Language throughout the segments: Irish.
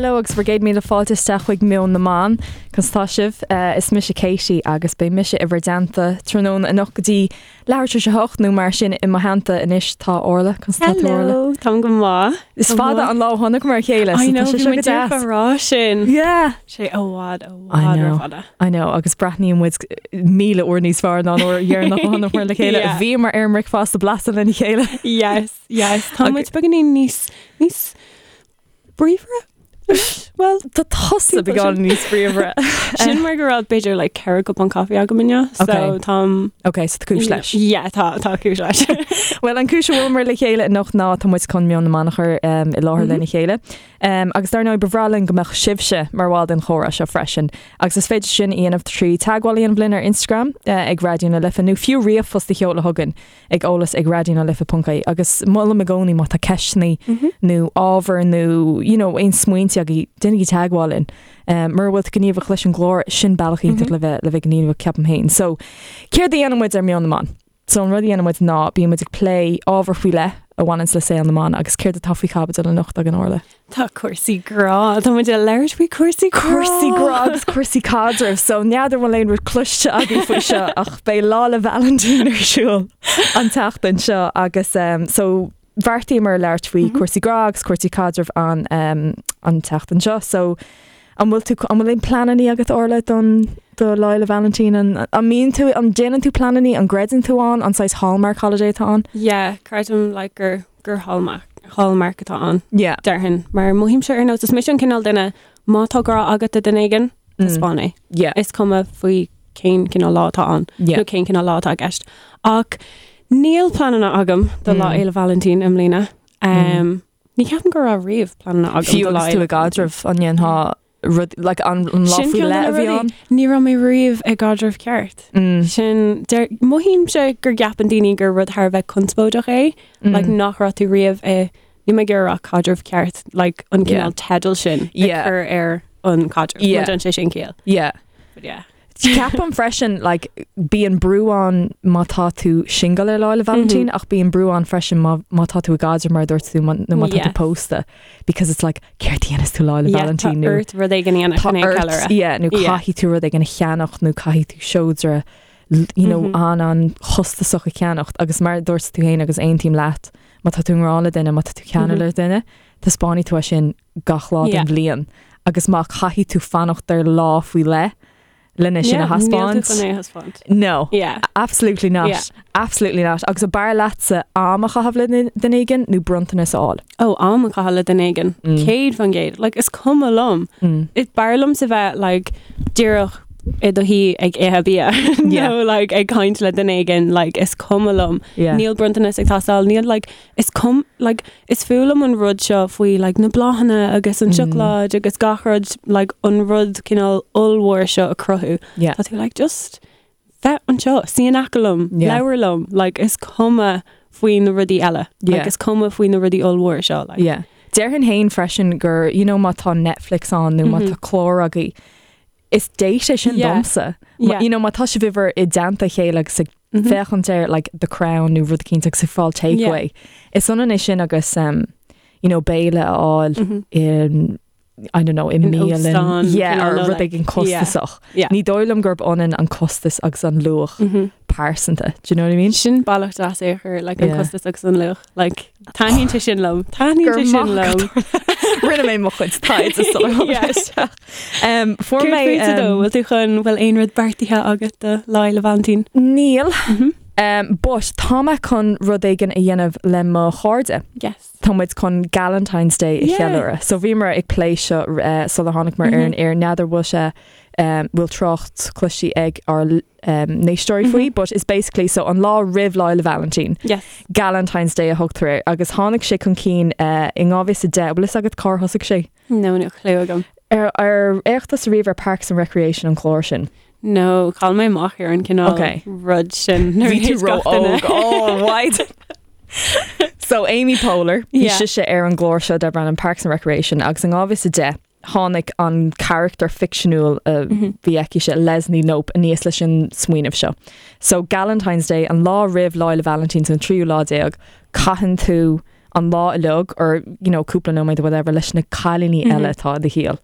Hello agus bhur gcéad míle fáilte isteach chuig Meon na mBan. Conas tá sibh? Is mise Katie agus beidh mise i bhur dteannta tráthnóna anocht go dtí leathuair tar éis a hocht nó mar sin i mo theannta anois tá Orla. Conas tá tú Orla? Hello, táim go maith. Is fada an lá ó chonaiceamar a chéile so tá sé seo go deas. I know, bhí muid rá sin. Yeah. Sé i bhfad, i bhfad rófhada. I know agus breathnaíonn muid 1000 uair níos fearr ná an uair dheireanach a chonaiceamar le chéile. Bhíomar ar an mbricfeasta blasta lena chéile. Yes, yes. Tá muid beagáinín níos, níos bríomhaire? Well, tá tusa beagán níos bríomhaire. Sin mar go raibh b'fhéidir like 4 cupán caife agam inniu, so Okay. táim Ok, so tá cúis leis. Yeah, tá tá cúis leis. Well, an cúis a bhfuileamar le chéile anocht ná tá muid chun Meon na mBan a chur um, i láthair lena chéile. Um, agus dar ndóigh ba bhreá linn go mbeadh sibhse mar bhall den chomhrá seo freisin. Agus is féidir sin a dhéanamh trí teagmháil a dhéanamh linn ar Instagram uh, ag Raidió na Life nó fiú ríomhphost a sheoladh chugainn. ag eolas ag raidionalife.ie agus molaim i gcónaí má tá ceisteanna nó ábhar nó you know, aon smaointe agaibh, déanaigí teagmháil linn. Um, mura bhfuil tú gníomhach leis an gclár sin bealach iontach le bheith le bheith gníomhach ceapaim féin. So céard a dhéanann muid ar Meon na mBan? So an rud a dhéanann muid ná bíonn muid ag plé ábhar faoi leith a bhaineanns le saol na mban agus céard atá faoi chaibidil anocht againn Orla? Tá cúrsaí grá, Tá muid ag labhairt faoi cúrsaí grá. Cúrsaí grá agus cúrsaí caidrimh, so n'fheadar an bhfuil aon rud cloiste agaibh faoi seo ach beidh Lá 'le Vailintín ar siúl an tseachtain seo agus um, so bheartaíomar labhairt faoi cúrsaí grá agus cúrsaí caidrimh an, um, an tseachtain seo. So an bhfuil tú an bhfuil aon pleananna agat Orla don do Lá 'le Vailintín an, an mbíonn tú an déanann tú pleananna an gcreideann tú ann an saghas hallmark holiday atá ann? Yeah, creidim like gur gur hallmark, hallmark atá ann. Yeah. Déarfainn, mar mothaímse ar nós, is mise an cineál duine, má tá grá agat do duine éigin, taispeáin é. Yeah. Is cuma faoi cén cineál lá atá ann, Yeah. nó cén cineál lá atá i gceist. Ach níl pleananna agam do Lá Fhéile Vailintín i mbliana. Um, Ní ceapaim go raibh riamh pleananna agam Fiú do Lá agus tú Fhéile i gcaidreamh an ndéanfá rud like an an lá Sin faoi ceann de leith na a bhí rudaí. ann? Ní raibh mé riamh i gcaidreamh ceart. Sin deir mothaímse gur gceapann daoine gur rud thar a bheith conspóideach é, like nach raibh tú riamh i níl mé ag iarraidh a rá caidreamh ceart, like an Yeah. cineál teidil sin ag Yeah. cur ar an caidreamh. Yeah. Má déanann sé sin ciall. Yeah. But yeah. Ceapaim freisin like, bíonn brú ann má tá tú single ar Lá 'le Vailintín ach bíonn brú ann freisin má, má tá tú i gcaidreamh mar a dúirt tú má- nó má tá tú Yes. pósta because it's like céard a dhéanfas tú Lá 'le Yeah, tá Vailintín nó ort rud éigin a dhéanamh tá chun é a ort cheiliúradh. yeah, nó Yeah. caithfidh tú rud éigin a cheannacht nó caithfidh tú seodra l- you know, an an chostasach a cheannacht agus mar a dúirt tú féin agus aontaím leat má tá tú i ngrá le duine má tá tú ceanúil le duine taispeánfaidh tú é sin gach lá den Yeah. bhliain agus má caithfidh tú fanacht ar lá faoi leith lena sin a Yeah, níl tú thaispeáint. chun é a thaispeáint. No. Yeah. Absolutely not. Yeah. Absolutely not. Agus ab fhearr leatsa am a chaitheamh le duine éigin nó bronntanas a fháil? Ó, am a chaitheamh le duine éigin. 100%. Like, is cuma liom. Is b'fhearr liomsa bheith, like, díreach i do shuí ag ithe bia. Yeah. Nó, like, ag caint le duine éigin, like, is cuma liom. Yeah. Níl bronntanas ag teastáil, níl, like, is cum, like, is fuath liom an rud seo faoi, like, na bláthanna agus an seacláid agus gach rud, like, an rud cineál ollmhór seo a cruthú. Yeah. Tá tú, like, just bheith anseo, suí in aice liom, Yeah. labhair liom, like, is cuma faoi na rudaí eile. Yeah. Like, is cuma faoi na rudaí ollmhóra seo, like. Yeah. Déarfainn féin freisin gur, you know, má tá Netflix ann nó má tá clár agaibh, is date é sin Yeah. domsa. Yeah. You know, má tá sibh i dteannta a chéile agus ag féachaint ar like The Crown nó rud eicínt agus ag fáil takeaway. Is ionann é sin agus um, you know, béile a fháil in I don't know, i mbialann óstán, yeah, cineál or nó, rud like, éigin costasach. Yeah. Ní dóigh liom gurb ionann an costas agus an luach pearsanta. Do you know what I mean? Sin bealach deas é a chur, like, an Yeah. costas agus an luach. Like, taitníonn sé sin liom. Taitníonn Gur sé sin maith liom. Rinne mé mo chuid taighde sular tháinig Yeah. isteach. Um, fuair Céard mé fútsa dó? um, Bhfuil tú chun bhfuil aon rud beartaithe agat do Lá Fhéile Vailintín? Níl. Um, but tá mé chun rud éigin a dhéanamh le mo chairde. Yes. Tá muid chun Galentine's Day a Yeah. cheiliúradh. So bhíomar ag plé seo uh, sular tháinig muid ar an aer n'fheadar bhfuil sé um, bhfuil trácht cloiste ag ár um, n-éisteoirí faoi, but it's basically so an lá roimh Lá Fhéile Vailintín. Yes. Galentine's Day a thugtar air agus tháinig sé chun cinn uh, in 2010 bhfuil fhios agat cár thosaigh sé. No, níl clue agam. Ar ar fhéach tusa riamh ar Parks and Recreation an clár sin. No, chaill mé amach ar an cineál Okay. rud sin. nuair a Bhí tú théis gach duine. ró-óg. Oh, why? So Amy Poehler, bhí Yeah. sise ar an gclár seo darb ainm Parks and Recreation agus in 2010 tháinig an charachtar ficseanúil a bhí aici se Leslie Knope aníos leis an smaoineamh seo. So Galentine's Day an lá roimh Lá Fhéile Vailintín an tríú lá déag, caitheann tú an lá uilig or you know cúpla nóiméad or whatever leis na cailíní eile atá i do shaol.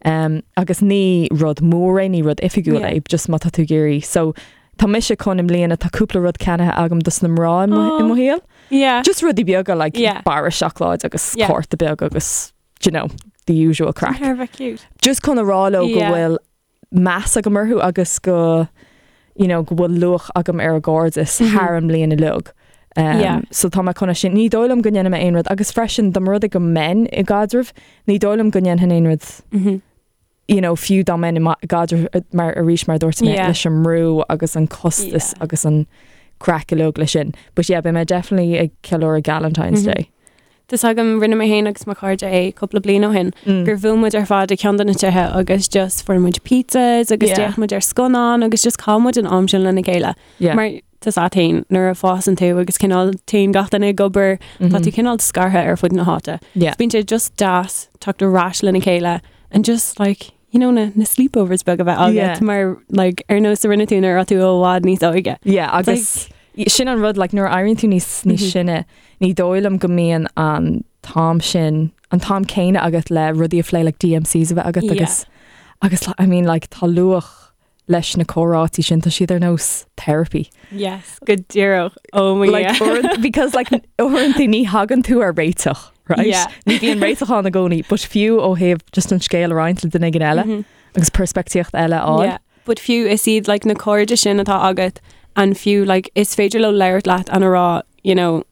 Um, agus ní rud mór é, ní rud oifigiúil é, just má tá tú ag iarraidh. So tá mise chun i mbliana tá cúpla rud ceannaithe agam dos na mná i mo, i mo shaol. Yeah. Just rudaí beaga like Yeah. barra seacláid agus Yeah. cárta beag agus you know, the usual craic. Thar a bheith cute. Just chun a rá leo go Yeah. bhfuil meas agam orthu agus go you know, go bhfuil luach agam ar a gcairdeas thar an mbliain uilig. Um, Yeah. So tá mé chun é sin ní dóigh liom go ndéanfaidh mé aon rud agus freisin dá mba rud é go mbeinn i gcaidreamh, ní dóigh liom go ndéanfainn aon rud Mhm. you know, fiú dá mbeinn i ma- gcaidreamh eh, mar arís mar a dúirt mé Yeah. leis an mbrú agus an costas Yeah. agus an craic uilig leis sin. But yeah, beidh mé definitely ag ceiliúradh Galentine's Mhm. Day. Tá 's agam rinne mé féin agus mo chairde é cúpla bliain ó shin gur bhuail muid ar fad ag ceann de na tithe agus just fuair muid pizzas agus Yeah. d'fhéach muid ar scannán agus just chaith muid an am sin lena chéile. Yeah. Mar tá 's agat féin nuair a fásann tú agus cineál téann gach duine ag obair tá tú cineál scartha ar fud na háite. Yeah. Bíonn sé just deas teacht ar ais lena chéile and just like you know na, na sleepovers beag a bheith agat Yeah. mar like ar nós a rinne tú nuair a bhí tú i bhfad níos óige. Yeah, agus sin an rud like, nuair a éiríonn tú níos níos Mhm. sine ní dóigh liom go mbíonn an t-am sin an t-am céanna agat le rudaí a phlé like DMCs a bheith agat Yeah. agus agus I mean like tá luach leis na comhráití sin tá siad ar nós therapy. Yes, go díreach. Oh my Like, yeah. uaireanta- because like uaireanta ní thagann tú ar réiteach, right? Yeah. Ní bhíonn réiteach ann i gcónaí, but fiú ó thaobh just an scéal a roinnt le duine éigin eile Mhm. agus peirspictíocht eile a fháil. Yeah. But fiú is iad like na cairde sin atá agat and fiú like is féidir leo labhairt leat and a rá you know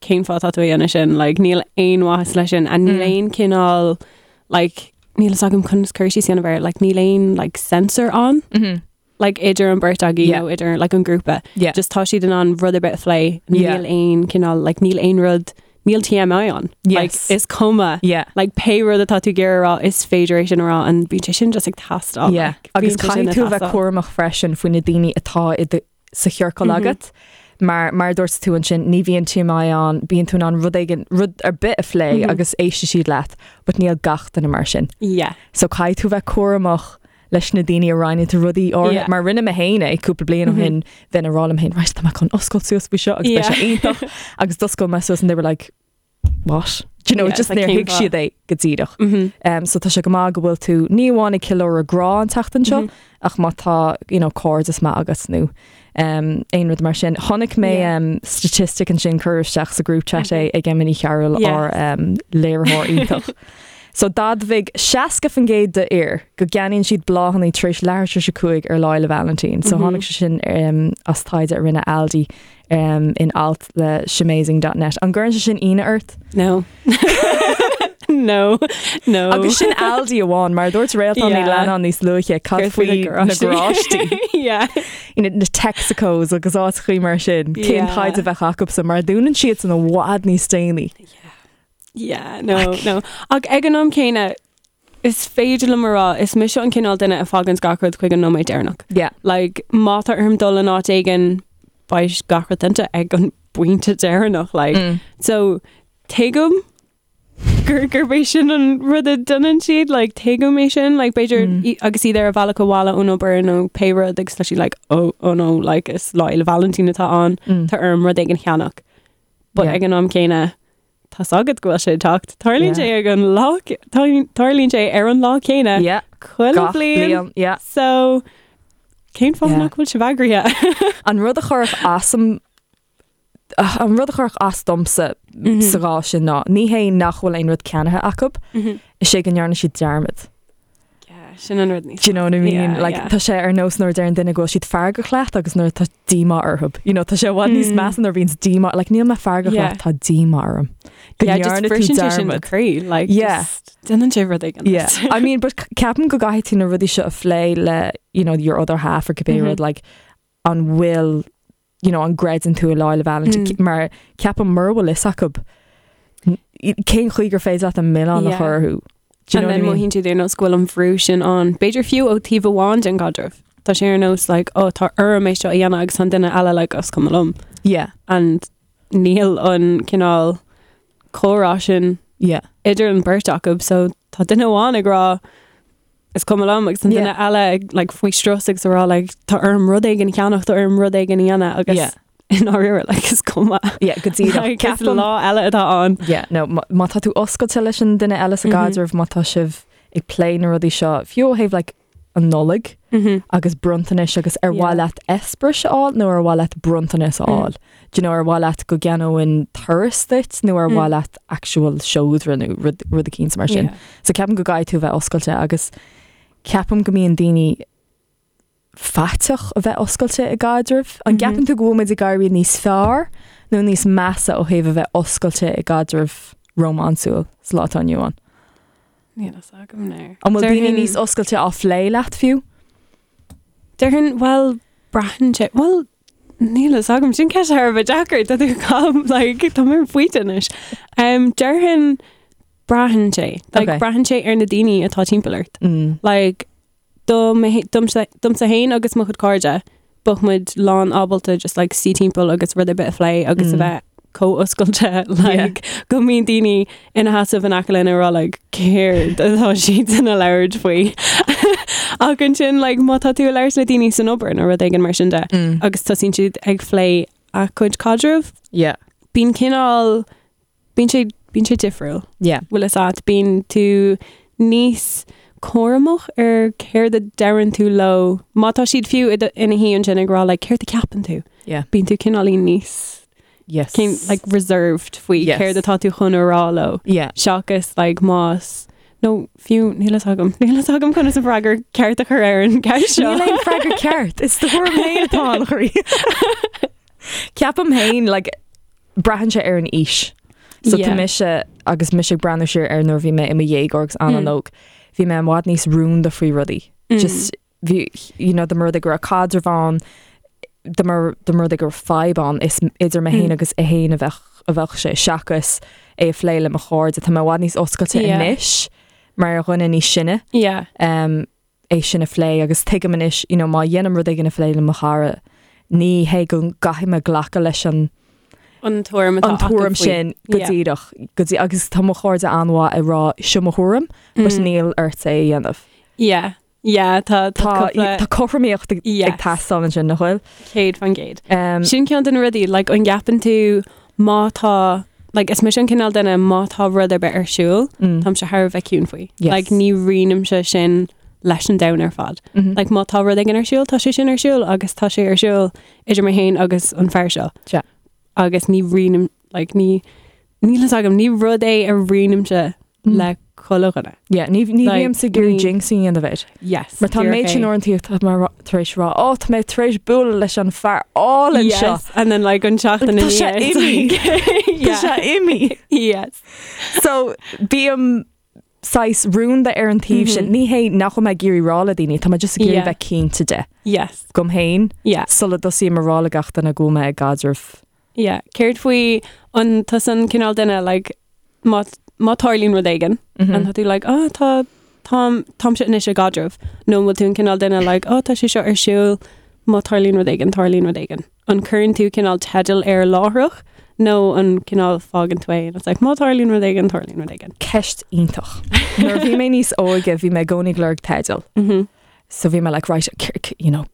cén fáth atá tú a dhéanamh sin like níl aon mhaitheas leis sin and níl Mm. aon cineál like níl fhios agam conas cur síos a dhéanamh air like níl aon like censor ann Mhm. like idir an bheirt agaibh Yeah. nó idir like an grúpa Yeah. just tá siad in ann rud ar bith a phlé Yeah. níl aon cineál like níl aon rud níl TMI ann like Yes. is cuma Yeah. like pé rud atá tú ag iarraidh a rá is féidir é sin a rá and bíonn sé sin just ag teastáil Yeah. like, Agus bíonn sé sin caithfidh ag tú a bheith teastáil. cúramach freisin faoi na daoine atá i do- sa chiorcal Mhm. agat. Mar mar a dúirt tú ansin ní bhíonn TMI ann, bíonn tú in ann rud éigin rud ar bith a phlé Mhm. agus éistfidh siad leat, but níl gach duine mar sin. Yeah. So caithfidh tú bheith cúramach leis na daoine a roinneann tú rudaí or Yeah. mar rinne mé féin é cúpla bliain ó Mhm. shin bheinn ag rá liom féin right tá mé chun oscailt suas faoi seo agus beidh Yeah. sé iontach agus d'oscail mé suas and they were like what? Do you know, Yeah, just it's like níor cén thuig fáth? siad é go díreach. Mhm. Um, so tá sé go maith go bhfuil tú ní amháin ag ceiliúradh grá an tseachtain seo Mhm. ach má tá you know, cairdeas maith agat nó um, aon rud mar sin. Chonaic mé Yeah. um, statistic ansin cuireadh isteach sa group chat é ag Emily Carroll Yes. ár um, léiritheoir iontach. So d'admhaigh 60% d'fhir go gceannaíonn siad bláthanna tar éis leathuair tar éis 5 ar Lá Fhéile Vailintín. So Mhm. tháinig sé sin um, as taighde a rinne Aldi um, in alt le shemazing.net. An gcuireann sé sin ionadh ort? No. No. No. Agus sin Aldi amháin mar dúirt Réaltán Ní Yeah. Leannáin níos luaithe cad Cad faoi faoi na na garáistí? garáistí. Yeah. You know, na Texacos agus áiteacha mar sin cén Yeah. taighde a bheadh acusan mar dúnann siad san i bhfad níos déanaí. Yeah, no, no. Ach ag an am céanna is féidir liom a rá is mise an cineál duine a fhágann gach rud chuig an nóiméad deireanach. Yeah. Like má tá orm dul in áit éigin beidh gach rud déanta ag an bpointe deireanach like. Mm. So tuigim gur gurb é sin an rud a dhéanann siad like tuigim é sin like b'fhéidir Mm. i- agus iad ar a bhealach abhaile ón obair nó pé rud agus tá siad like oh oh no like is Lá Fhéile Vailintín atá ann Mm. tá orm rud éigin a cheannach. But Yeah. ag an am céanna tá 's agat go bhfuil sé ag teacht. Tarlaíonn Yeah. sé ag an lá tarlaíonn sé ar an lá céanna Yeah. chuile Gach bliain. bliain. Yeah. So cén fáth Yeah. nach bhfuil sibh eagraithe? An rud a chuirfeadh asam an rud a chuirfeadh as domsa Mhm. sa chás sin ná ní hé nach bhfuil aon rud ceannaithe acu, is é go ndearna siad dearmad. Yeah, sin an rud níos Do you know what I mean? Yeah, like yeah. tá sé ar nós nuair a deireann duine go bhfuil siad feargach leat agus nuair tá díomá orthu. You know, tá sé i bhfad níos Mm. measa nuair a bhíonn díomá, like níl mé feargach Yeah. leat, tá díomá orm. Go Yeah, just ndearna tú briseann sé sin do dearmad. chroí, like Yeah. just déanann sé rud éigin. Yeah. I mean, but ceapaim go gcaithfidh tú na rudaí seo a phlé le, you know, your other half or cibé Mhm. rud, like, an bhfuil, you know, an gcreideann tú i Lá Fhéile Vailintín, Mm. mar ceapaim mura bhfuil fhios acu, cén chaoi gur féidir leat an milleán a Yeah. chur orthu. Do you And know what I then mean? mothaíonn siad ar nós go bhfuil an brú sin ann. B'fhéidir fiú ó taobh amháin den gcaidreamh. Tá sé ar nós like, oh, tá orm é seo a dhéanamh agus an duine eile like, is cuma liom. Yeah, And níl an cineál comhrá sin yeah, idir an bheirt acu, so tá duine amháin ag rá is cuma liom agus an duine Yeah. eile ag like, faoi strus agus a rá like, tá orm rud éigin a cheannach, tá orm rud éigin a dhéanamh agus Yeah. I ndáiríre, like, is cuma. Yeah, go díreach. Like, is Ceapaim- lá eile atá ann. Yeah, no, má má tá tú oscailte leis an duine eile sa gcaidreamh, má tá sibh ag plé na rudaí seo, fiú ó thaobh like, an Nollaig agus bronntanais agus ar mhaith leat eispéireas a fháil nó ar mhaith leat bronntanas a fháil. Do you know, ar mhaith leat go gceannóinn turas duit nó ar mhaith leat actual seodra nó rud rud eicínt mar sin. Yeah. So ceapaim go gcaithfidh tú a bheith oscailte agus ceapaim go mbíonn daoine faiteach a bheith oscailte i gcaidreamh. An gceapann tú go bhfuil muid ag éirí níos fearr nó níos measa ó thaobh a bheith oscailte i gcaidreamh rómánsúil sa lá atá inniu ann? Níl a fhios agam now. An bhfuil daoine níos oscailte á phlé leat fiú? Déarfainn, bhuel, braitheann sé, bhuel, níl a fhios agam, sin ceist thar a bheith deacair, tá tú calm, like, tá mé ar an bpointe anois. Um, déarfainn, braitheann sé, like, Okay. braitheann sé ar na daoine atá timpeall ort. Mm. Like, do mé- domsa domsa féin agus mo chuid cairde, bheadh muid lán ábalta just like suí timpeall agus rud ar bith a phlé agus a bheith chomh oscailte like go mbíonn daoine ina sheasamh in aice linn ag rá like céard atá siad ag labhairt faoi. Ach ansin like má tá tú ag labhairt le daoine san obair nó rud éigin mar sin de agus tosaíonn siad ag plé a gcuid caidreamh, Yeah. bíonn cineál Bíonn sé, bíonn sé difriúil. Yeah. Bhfuil fhios agat, bíonn tú níos cúramach ar céard a deireann tú leo. Má tá siad fiú i do, ina shuí ansin ag rá like céard a ceapann tú? Yeah. Bíonn tú cineáilín níos Yes. cén, like reserved faoi Yes. céard atá tú chun a rá leo. Yeah. Seachas like más nó fiú níl fhios agam, níl fhios agam conas an freagra ceart a chur ar an gceist seo. Níl aon freagra ceart. Is do thuairim féin atá ann, a chroí. Ceapaim féin like braitheann sé ar an aois. So tá mise agus mise ag breathnú siar ar nuair bhí mé i mo dhéagóir agus an-óg, bhí mé i bhfad níos rúnda faoi rudaí. Just bhí, you know, dá mba rud é go raibh caidreamh ann, dá mba dá mba rud é go raibh fadhb ann, is idir mé féin agus é féin a bheadh a bheadh sé seachas é a phlé le mo chairde. Tá mé i bhfad níos oscailte anois mar dhuine níos sine. Yeah. Um, é sin a phlé agus tuigim anois, you know, má dhéanaim rud éigin a phlé le mo chara, ní hé go gcaithfidh mé glacadh leis an An tuairim atá an acu tuairim faoi. sin go Yeah. díreach, go dtí, agus tá mo chairde an-mhaith ag rá seo mo thuairim, but Mm. níl ort é a dhéanamh. Yeah. Yeah, tá tá Tá cúpla tá cothromaíocht ag ag Yes. teastáil ansin, nach bhfuil? 100%. Um, Sin ceann de na rudaí, like, an gceapann tú má tá, like, is mise an cineál duine má tá rud ar bith ar siúl, mm, táimse thar a bheith ciúin faoi. Yes. Like, ní roinnimse sin leis an domhan ar fad. mhm. Like, má tá rud éigin ar siúl, tá sé sin ar siúl agus tá sé ar siúl idir mé féin agus an fear seo. Sea. Agus ní roinnim, like, ní, níl fhios agam, ní rud é a roinnimse Mm. le chuile dhuine. Yeah, ní ní Like, bhímse ag iarraidh ní- jinx a dhéanamh air. Yes. Mar tá díreach méid sin é. uaireanta tá mé rá- tar éis rá, ó tá mé tar éis bualadh leis an fear álainn seo. Yes, and then like an seachtain Tá sé ina dhiaidh, imithe. like, Tá yeah. sé imithe. Yes. So bím saghas rúnda ar an taobh sin. Ní hé nach bhfuil mé ag iarraidh rá le daoine, tá mé just ag iarraidh Yeah. bheith cinnte de. Yes. Dom féin Yeah. sula dtosaím a rá le gach duine go bhfuil mé i gcaidreamh. Yeah. Céard faoi an tusa an cineál duine like má má tarlaíonn rud éigin Mhm. an tá tú like oh tá táim táimse anois i gcaidreamh nó an bhfuil tú an cineál duine like oh tá sé seo ar siúl má tarlaíonn rud éigin tarlaíonn rud éigin. An cuireann tú cineál teideal air láithreach nó an cineál fágann tú é and it's like má tarlaíonn rud éigin tarlaíonn rud éigin. Ceist iontach. Nuair a bhí mé níos óige bhí mé i gcónaí ag lorg teideal. Mhm. So bhí mé like right you know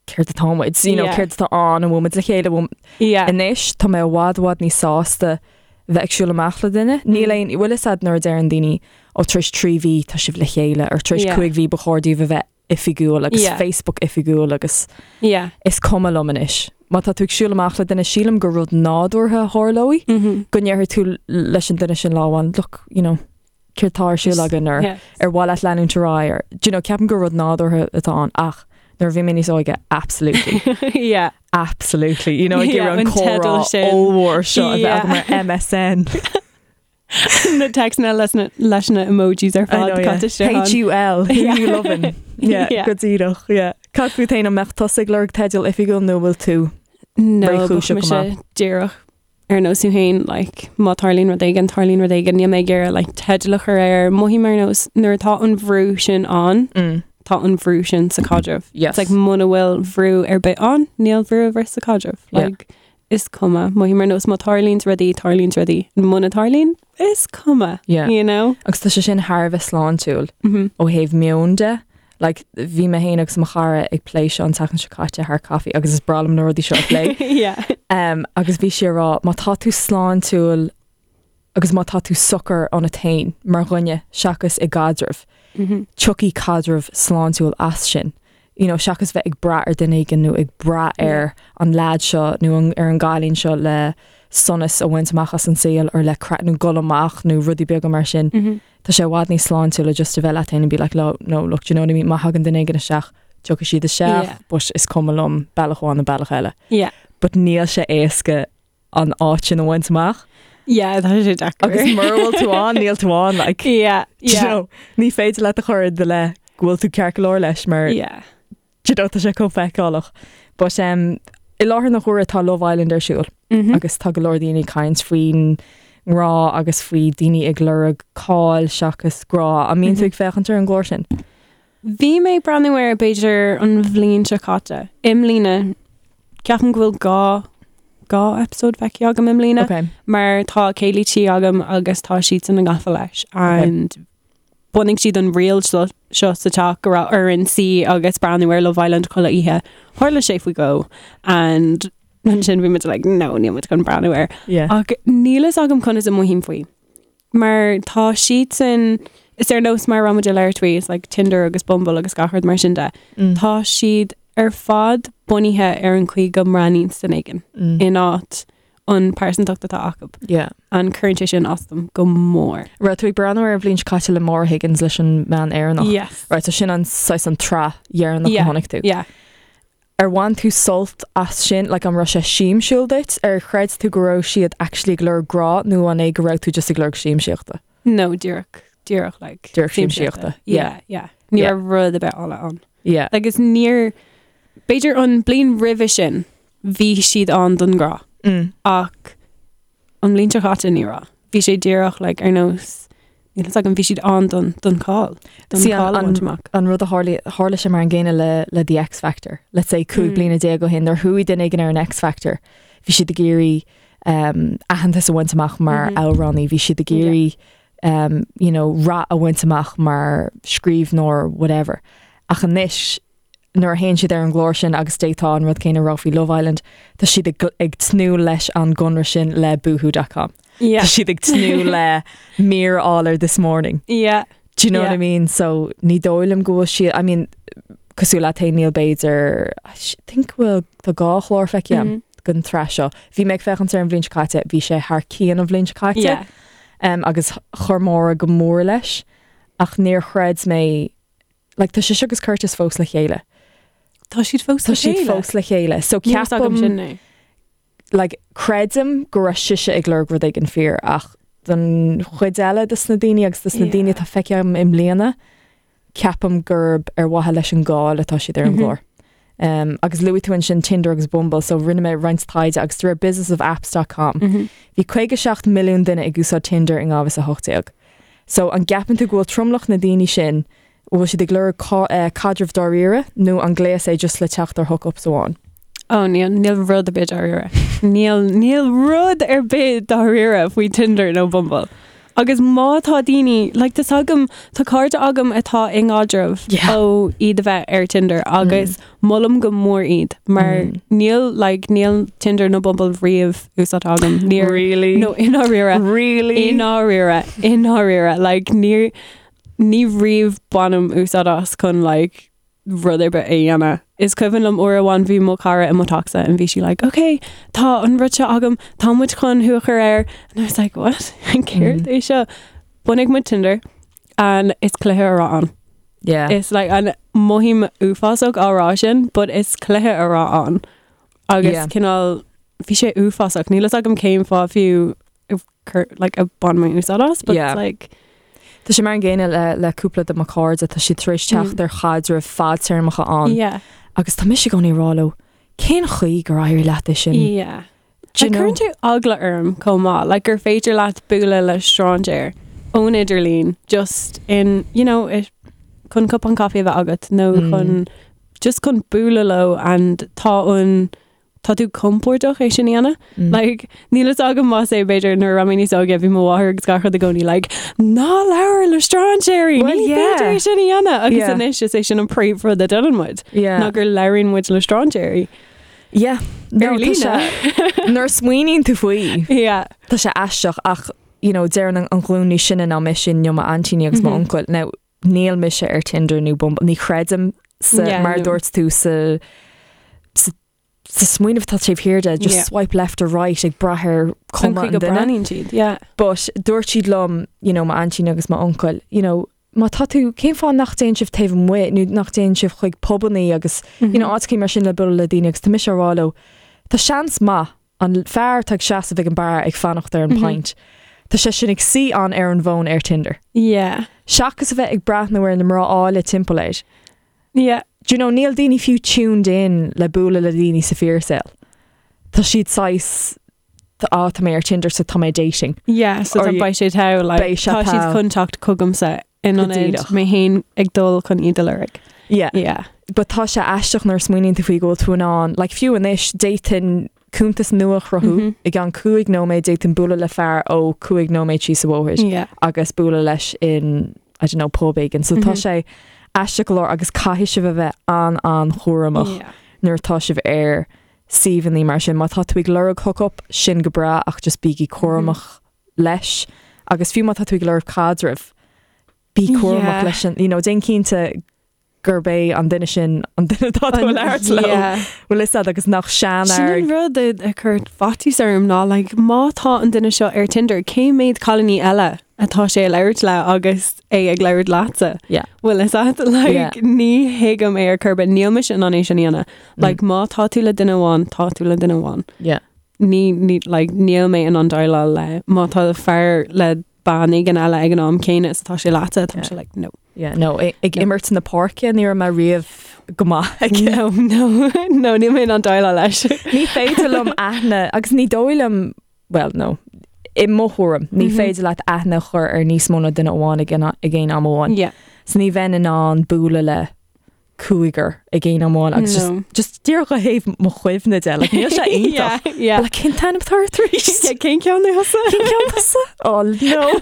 céard atá muid, you know, Yeah. céard atá ann, an bhfuil muid le chéile, an bhfuil Yeah. Anois tá mé i bhfad i bhfad níos sásta bheith ag siúl amach le duine. Níl Mm. aon, bhfuil fhios a'd nuair a deireann daoine ó tar éis 3 mhí tá sibh le chéile or tar éis Yeah. 5 mhí ba chóir daoibh a bheith oifigiúil agus Yeah. Facebook oifigiúil agus Yeah. is cuma liom anois. Má tá tú ag siúl amach le duine sílim gur rud nádúrtha a tharlóidh Mhm. go ndéarfaidh tú leis an duine sin lá amháin, look, you know, céard tá ar siúl againn or Yeah. ar mhaith leat leanúint ar aghaidh or, do you know, ceapaim gur rud nádúrtha atá ann ach nuair a bhí mé níos óige, absolutely. Yeah. Absolutely. You know, ag Yeah, iarraidh an an comhrá teideal sin. ollmhór seo a bheith Yeah. agam ar MSN. Na téacsanna leis na leis na emojis ar I fad know, yeah. caite isteach ann. H-U-L, who Yeah. you loving? Yeah, Yeah. go díreach, yeah. Cad fút féin an mbeadh tusa ag lorg teideal oifigiúil nó bhfuil tú? No, Réchúiseach bheadh go mise díreach ar nós tú féin, like, má tarlaíonn rud éigin, tarlaíonn rud éigin, níl mé ag iarraidh like, teideal a chur air. Mothaím ar nós nuair atá an bhrú sin ann, Mm. tá an bhrú sin sa caidreamh. Yes. It's like muna bhfuil bhrú ar bith ann, níl bhrú ar bith sa caidreamh. Yeah. Like, is cuma. Mothaím ar nós má tarlaíonn rudaí, tarlaíonn rudaí. Muna tarlaíonn, is cuma. Yeah. You know? Agus tá sé sin thar a bheith sláintiúil Mm -hmm. ó thaobh meon de. Like, bhí mé féin agus mo chara ag plé seo an tseachtain seo caite thar caife agus is breá liom na rudaí seo a phlé. Yeah. Um, agus bhí sí ag rá, má tá tú sláintiúil agus má tá tú socair ionat féin mar dhuine seachas i gcaidreamh, mm -hmm. tiocfaidh caidreamh sláintiúil as sin. You know, seachas bheith ag brath ar duine éigin nó ag brath ar an leaid seo nó an, ar an gcailín seo le sonas a bhaint amach as an saol or le craic nó gol amach nó rudaí beaga mar sin. Mm -hmm. Tá sé i bhfad níos sláintiúla just a bheith leat féin and be like, no, no, look, do you know what I mean? Má thagann duine éigin isteach, tiocfaidh siad isteach, yeah. but is cuma liom bealach amháin nó bealach eile. Yeah. But níl sé éasca an áit sin a bhaint amach. Yeah, tá sé deacair. Agus mura bhfuil tú ann, níl tú ann, like. Yeah, yeah. You know, ní féidir leat a chur i do leith go bhfuil tú ceart go leor leis mar yeah. Do you know, tá sé chomh feiceálach. But um, i láthair na huaire tá Love Island ar siúl mm -hmm. agus tá go leor daoine ag caint faoin ngrá agus faoi daoine ag lorg cáil seachas grá. An mbíonn tú ag féachaint ar an gclár sin? Bhí mé ag breathnú air b'fhéidir an bhliain seo caite. I mbliana ceapaim go bhfuil dhá dhá episode feicthe agam i mbliana okay. mar tá céilí tí agam agus tá siadsan gafa leis and okay. Bhunaigh siad an riail seo sa teach go raibh orainn suí agus breathnú ar Love Island chuile oíche. Tharla sé faoi dhó and ansin bhí muid like no níl muid chun breathnú air. Yeah. Ach níl fhios agam conas a mothaím faoi. Mar tá siadsan is ar nós mar a raibh muid ag labhairt faoi is like Tinder agus Bumble agus gach rud mar sin de. Tá siad ar fad bunaithe ar an chaoi go mbreathnaíonn duine éigin in áit an pearsantacht atá acu. Yeah. And cuireann sé sin as dom go mór. Raibh tú ag breathnú air an bhliain seo caite le Maura Higgins leis an mbean Éireannach. Yes. Right, so sin an saghas an tsraith dheireanach Yeah. a chonaic tú. Yeah. Ar bhain tú sult as sin, like an raibh sé siamsúil duit? Ar chreid tú go raibh siad actually ag lorg grá nó an é go raibh tú just ag lorg siamsaíochta? No, díreach, díreach like. Díreach siamsaíochta. Yeah, yeah. Ní Yeah. raibh rud ar bith eile ann. Yeah. Agus níor, b'fhéidir an bliain roimhe sin, bhí siad ann don grá. Mm. Ach an bhliain seo caite ní raibh. Bhí sé díreach like, ar nós níl fhios agam bhí siad ann don don cáil. Don See, an- cáil a an- bhaint amach. An rud a tharla tharla sé mar an gcéanna le le The X Factor. Let's say 15 Mm. bliana ó shin nuair a chuaigh duine éigin ar an X Factor. Bhí siad ag iarraidh um, aitheantas a bhaint amach mar Mhm. amhránaí, bhí siad ag iarraidh um, you know, rath a bhaint amach mar scríbhneoir whatever. Ach anois nuair a théann siad ar an gclár sin agus d'fhéadfá an rud céanna a rá faoi Love Island, tá siad ag, ag tnúth leis an gconradh sin le boohoo.com. Yeah. Tá siad ag tnúth le mír a fháil ar This Morning. Yeah. Do you know what Yeah. I mean? So ní dóigh liom go bhfuil siad, I mean, cosúil leat féin níl b'fhéidir, I think bhfuil tá dhá chlár feicthe agam Mm. den tsraith seo. Bhí mé ag féachaint air an bhliain seo caite, bhí sé thar cionn an bhliain seo caite. Yeah. Um, agus chuir Máire go mór leis, ach níor chreid mé Like, tá sise agus Curtis fós le chéile. Tá siad fós Tá le siad chéile. fós le chéile. So Níl fhios agam ceapaim sin é. like, creidim go raibh sise ag lorg rud éigin fíor ach don chuid eile de na daoine agus de na Yeah. daoine atá feicthe agam i mbliana, ceapaim gurb ar mhaithe leis an gcáil atá siad ar an Mhm. gclár. Um, agus luaigh tú ansin Tinder agus Bumble, so rinne mé roinnt taighde agus de réir businessofapps.com. Mhm. Bhí 57 milliún duine ag úsáid Tinder in 2018. So an gceapann tú go bhfuil tromlach na daoine sin, bhfuil siad ag lorg caidreamh dáiríre nó an gléas é just le teacht ar hookups amháin? Ó níl níl rud ar bith dáiríre. Níl níl rud ar bith dáiríre faoi Tinder nó Bumble. Agus má tá daoine, like tá agam tá cairde agam atá i ngáidreamh Yeah. ó iad a bheith ar Tinder agus molaim go mór iad mar Mm. níl like níl Tinder nó Bumble riamh úsáidte agam. Níor Really? No i ndáiríre. Really? I ndáiríre, i ndáiríre, like ní ní riamh bainim úsáid as chun like rud ar bith a dhéanamh. Is cuimhin liom uair amháin bhí mo chara i mo theachsa and bhí sí like, okay, tá an rud seo agam, tá muid chun thú a chur air. And I was like, what? Céard Mm. é seo? Bhunaigh muid Tinder and is cluiche a raibh ann. Yeah. Is like an mothaím uafásach á rá sin, but is cluiche a raibh ann. Agus Yeah. cineál bhí sé uafásach. Níl fhios agam cén fáth fiú cur like a bhain mé úsáid as, but Yeah. it's like Tá sé mar an gcéanna le, le cúpla de mo chairde, tá siad tar éis teacht Mm. ar chaidreamh fadtéarmacha ann. yeah. Agus tá mise i gcónaí ag rá leo, cén chaoi gur éirigh leat é sin? Yeah. Do you Like, know? Cuireann sé eagla orm chomh maith, like gur féidir leat bualadh le strainséir ón idirlíon just in, you know, it, chun cupán caife a bheith agat nó Mm. chun just chun bualadh leo and tá an tá tú compordach é sin a dhéanamh. Mm. Like, níl fhios agam más é b'fhéidir nuair a raibh mé níos óige bhí mo mháthair agus gach rud i gcónaí like, ná labhair le strainséirí, Well, ní yeah. féidir é sin a dhéanamh agus Yeah. anois is é sin an príomhrud a déanann muid. Yeah. Ná gur labhraíonn muid le strainséirí. Yeah. No, Ar tá líne. sé- Nuair a smaoiníonn tú faoi, Yeah. tá sé aisteach ach you know, deireann an an ghlúin níos sine ná mise nó m'aintíní agus Mhm. m'uncail. Now, níl mise ar Tinder nó Bumble, ní chreidim sa, Yeah, mar no. dúirt tú sa sa sa smaoineamh atá taobh thiar de, just Yeah. swipe left or right ag brath ar An cuma chaoi an go duine. breathnaíonn siad, yeah. But dúirt siad liom, you know, m'aintín agus m'uncail, you know, má tá tú cén fáth nach dtéann sibh taobh amuigh nó nach dtéann sibh chuig pubannaí agus you know, áiteachaí mar sin le bualadh le daoine agus tá mise á rá leo, tá seans maith an fear atá ag seasamh ag an beár ag fanacht ar an Mhm. pint. Tá sé sin ag suí ann ar an bhfón ar Tinder. Yeah. Seachas a bheith ag breathnú ar na mná áille timpeall air. Yeah. Do you know, níl daoine fiú tuned in le bualadh le daoine sa fíorshaol. Tá siad saghas á tá mé ar Tinder so tá mé dating. Yeah, so Or tá you- beidh sé togha, like, Beidh sé tá siad togha. chun teacht chugamsa in Go ionad díreach. mé féin ag dul chun iad a lorg. Yeah. Yeah. But tá sé aisteach nuair a smaoiníonn tú faoi go bhfuil tú in ann, like fiú anois d'fhéadfainn cuntas nua a chruthú Mhm. i gceann 5 nóiméad d'fhéadfainn bualadh le fear ó 5 nóiméad síos an bhóthar Yeah. agus bualadh leis in I don't know pub éigin. So tá Mhm. sé aisteach go leor agus caithfidh sibh a bheith an an-chúramach Yeah. nuair atá sibh ar suíomhanna mar sin. Má tá tú ag lorg hookup sin go breá ach just bígí cúramach leis agus fiú má tá tú ag lorg caidreamh bí cúramach Yeah. leis sin, you know, déan cinnte gurb é an duine sin an duine atá tú ag labhairt leo. Yeah. Bhfuil fhios agat agus nach Sin seanfhear an rud a chuir faitíos orm ná like, má tá an duine seo ar Tinder, cé mhéad cailíní eile atá sé ag labhairt le agus é ag labhairt leatsa? Yeah. Bhfuil fhios agat like, Yeah. ní thuigim é ar chor ar bith níl mise in ann é sin a dhéanamh. Like, má tá tú le duine amháin, tá tú le duine amháin. Yeah. Ní, ní, like, níl mé in ann déileáil le má tá fear le bean éigin eile ag an am céanna is atá sé leatsa, tá Yeah. sé like, no. Yeah, no, ag No. imirt na páirce ní raibh mé riamh go maith aige. No, no, no, níl mé in ann déileáil leis. Ní féidir liom aithne agus ní dóigh liom well no i mo thuairim ní Mhm. féidir leat aithne a chur ar níos mó ná duine amháin ag an ag aon am amháin. Yeah. So ní bheinn in ann bualadh le cúigear ag aon am amháin agus No. just just díreach ó thaobh mo chuimhne de like, níl sé iontach. Yeah, yeah. Like, cén t-ainm atá ort arís? Yeah, cén ceann é thusa? Cén ceann tusa? Oh no.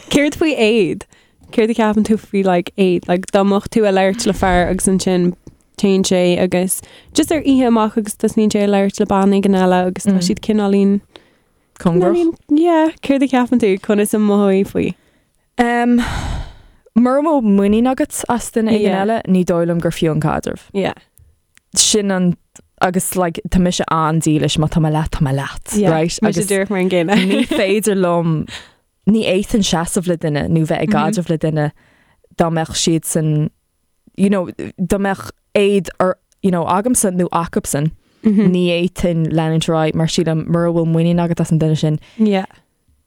Céard faoi éad? Céard a cheapann tú faoi like éad? Like dá mbeadh tú ag labhairt le fear agus ansin téann sé agus just ar oíche amach agus tosnaíonn sé ag labhairt le bean éigin eile agus tá Mm. siad cineáilín Cóngarach. cineáilín- Yeah, céard a cheapann tú conas a mhothóidh faoi? Um, Mura bhfuil muinín agat as duine éigin Yeah. eile, ní dóigh liom gur fiú an caidreamh. Yeah. Sin an agus like, tá mise an-dílis má tá mé leat tá mé leat, Yeah. right? Mise Agus díreach mar an gcéanna. ní féidir liom ní fhéadfainn seasamh le duine nó bheith ag Mhm. caidreamh le duine dá mbeadh siad san you know, dá mbeadh éad ar you know, agamsa nó acusan Mhm. ní fhéadfainn leanúint ar aghaidh mar sílim mura bhfuil muinín agat as an duine sin Yeah.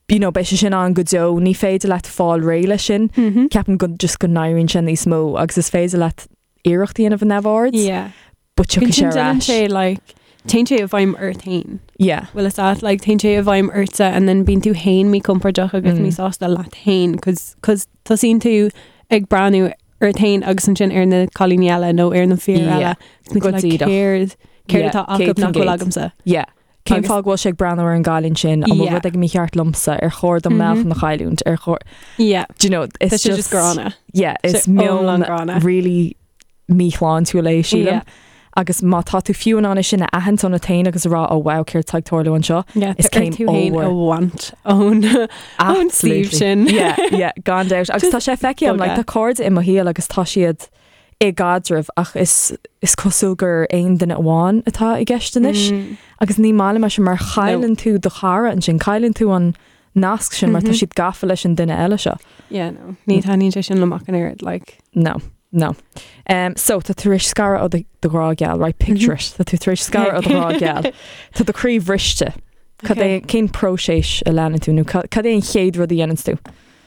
you know, beidh sé sin ann go deo ní féidir leat fáil réidh leis sin Mhm. ceapaim go just go n-éiríonn sé níos mó agus is féidir leat iarracht a dhéanamh a neamhaird Yeah. but tiocfaidh sé Ansin ar déanann ais. sé like téann sé i bhfeidhm ort féin. Yeah. Bhfuil fhios agat like téann sé i bhfeidhm ortsa and then bíonn tú féin míchompordach agus Mm. míshásta leat féin cos cos tosaíonn tú ag breathnú ort féin agus ansin ar na cailíní eile nó ar na fir Yeah. eile. Agus bíonn tú Go like, díreach. céard céard Yeah, atá acu nach bhfuil 100%. agamsa. Yeah. Cén Agus- fáth go bhfuil sé ag breathnú ar an gcailín sin an bhfuil Yeah. rud éigin mícheart liomsa ar chóir dom Mhm. meáchan a chailliúint ar chóir Yeah. Do you know, it's Tá sé just just gránna. Yeah, is Sé iomlán meon gránna. really míshláintiúil é sílim. Yeah. Agus má tá tú fiú in ann é sin a aithint ionat féin agus a rá ó wow céard atá ag tarlú anseo. Yeah, Is tá céim tú féin a ollmhór. bhaint ón ón suíomh Absolutely. sin. Yeah, yeah, gan doubt. Agus tá sé feicthe agam, like, bogadh. tá cairde i mo shaol agus tá siad i gcaidreamh ach is is cosúil gur aon duine amháin atá i gceist anois. Mm. Agus ní maith liom é sin mar chailleann tú do chara ansin, cailleann tú an nasc sin mar tá Mhm. siad gafa leis an duine eile seo. Yeah, no. Ní taitníonn sé sin liom ach an oiread, like. No, no. Um, so tá tú tar éis scaradh ó do do ghrá geal, right? Picture it. Tá tú tar éis scaradh ó do ghrá geal. Tá do chroí bhriste. Cad é cén próiseas a leanann tú nó ca- cad é an chéad rud a dhéanann tú?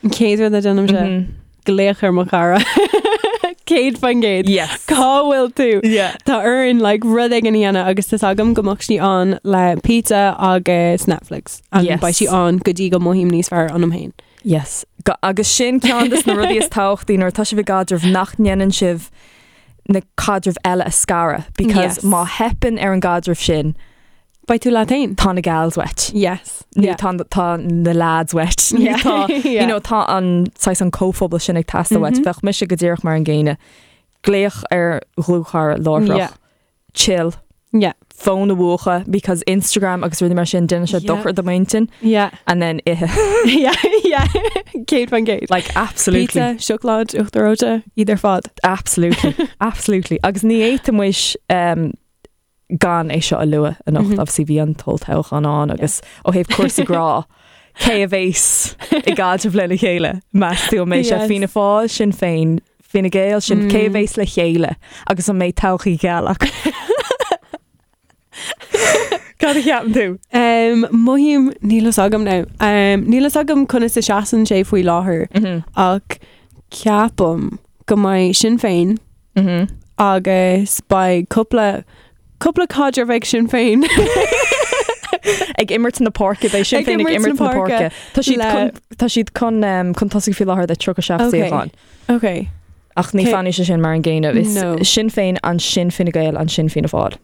An chéad rud a déanaimse Mhm. glaoch ar mo chara. 100%. Yes. Cá bhfuil tú? Yeah. Tá orainn like, rud éigin a dhéanamh agus tá agam go mbeadh sí ann le pizza agus Netflix. And Yes. beidh sí ann go dtí go mothaím níos fearr ionam féin. Yes. Ga- Agus sin ceann de na rudaí is tábhachtaí nuair atá sibh i gcaidreamh nach ndéanann sibh na caidrimh eile a scaradh because má theipeann ar an gcaidreamh sin, Beidh tú leat féin. Tá na gals uait. Yes. Nó tá tá na lads uait. Nó tá you know tá an saghas an comhphobal sin ag teastáil uait. Bheadh mise go díreach mar an gcéanna. Glaoch ar dhlúthchara láithreach. Yeah. Chill. Yeah. Fón a mhúchadh because Instagram agus rudaí mar sin déanann sé dochar do m'intinn. Yeah. And then ithe. Yeah, yeah. 100%. Like absolutely. Pizza, siocláid, uachtar reoite, iad ar fad. Absolutely. Absolutely. Agus ní fhéadfaidh muid um, gan é seo a lua anocht, obviously bhí an t-olltoghchán ann agus ó thaobh cúrsaí grá, cé a bhéas i gcaidreamh lena chéile, meas tú an mbeidh sé Fianna Fáil, Sinn Féin, Fine Gael, sin cé a bhéas le chéile agus an mbeidh todhchaí gheal acu? Cad a cheapann tú? Um, mothaím, níl fhios agam now. Um, níl fhios agam conas a seasann sé faoi láthair ach ceapaim go mbeidh Sinn Féin Agus beidh cúpla, cúpla caidreamh ag Sinn Féin. Ag imirt na páirce, beidh Sinn Féin ag imirt na páirce. Tá siad chun, tá siad chun, chun tosaigh faoi láthair le 37 suíochán. Ok. Ach ní fanfaidh sé sin mar an gcéanna. Is Sinn Féin, ansin Fine Gael, ansin Fianna Fáil.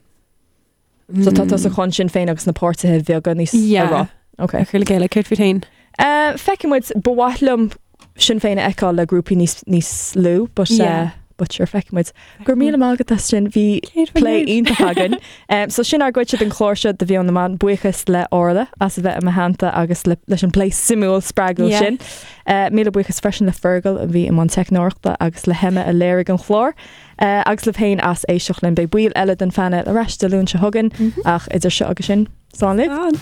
So tá tusa chun Sinn Féin agus na páirtithe bheaga níos a rá. Ok. A chur le chéile, céard fút féin? Feicfidh muid, ba mhaith liom Sinn Féin a fheiceáil le grúpaí níos níos lú, but uh, but sure feicfidh muid. Go raibh míle maith agat as sin, bhí plé iontach againn. Um, so sin ár gcuidse den chlár seo de Mheon na mBan, buíochas le Orla as a bheith i mo theannta agus le, leis an plé suimiúil spreagúil yeah. sin. Uh, míle buíochas freisin le Fergal a bhí i mbun teicneoireachta agus le hEmma a léirigh an chlár. Agus libh féin as éisteacht linn. Beidh baill eile den phainéal ar ais Dé Luain seo chugainn, ach idir seo agus sin, slán libh. Slán.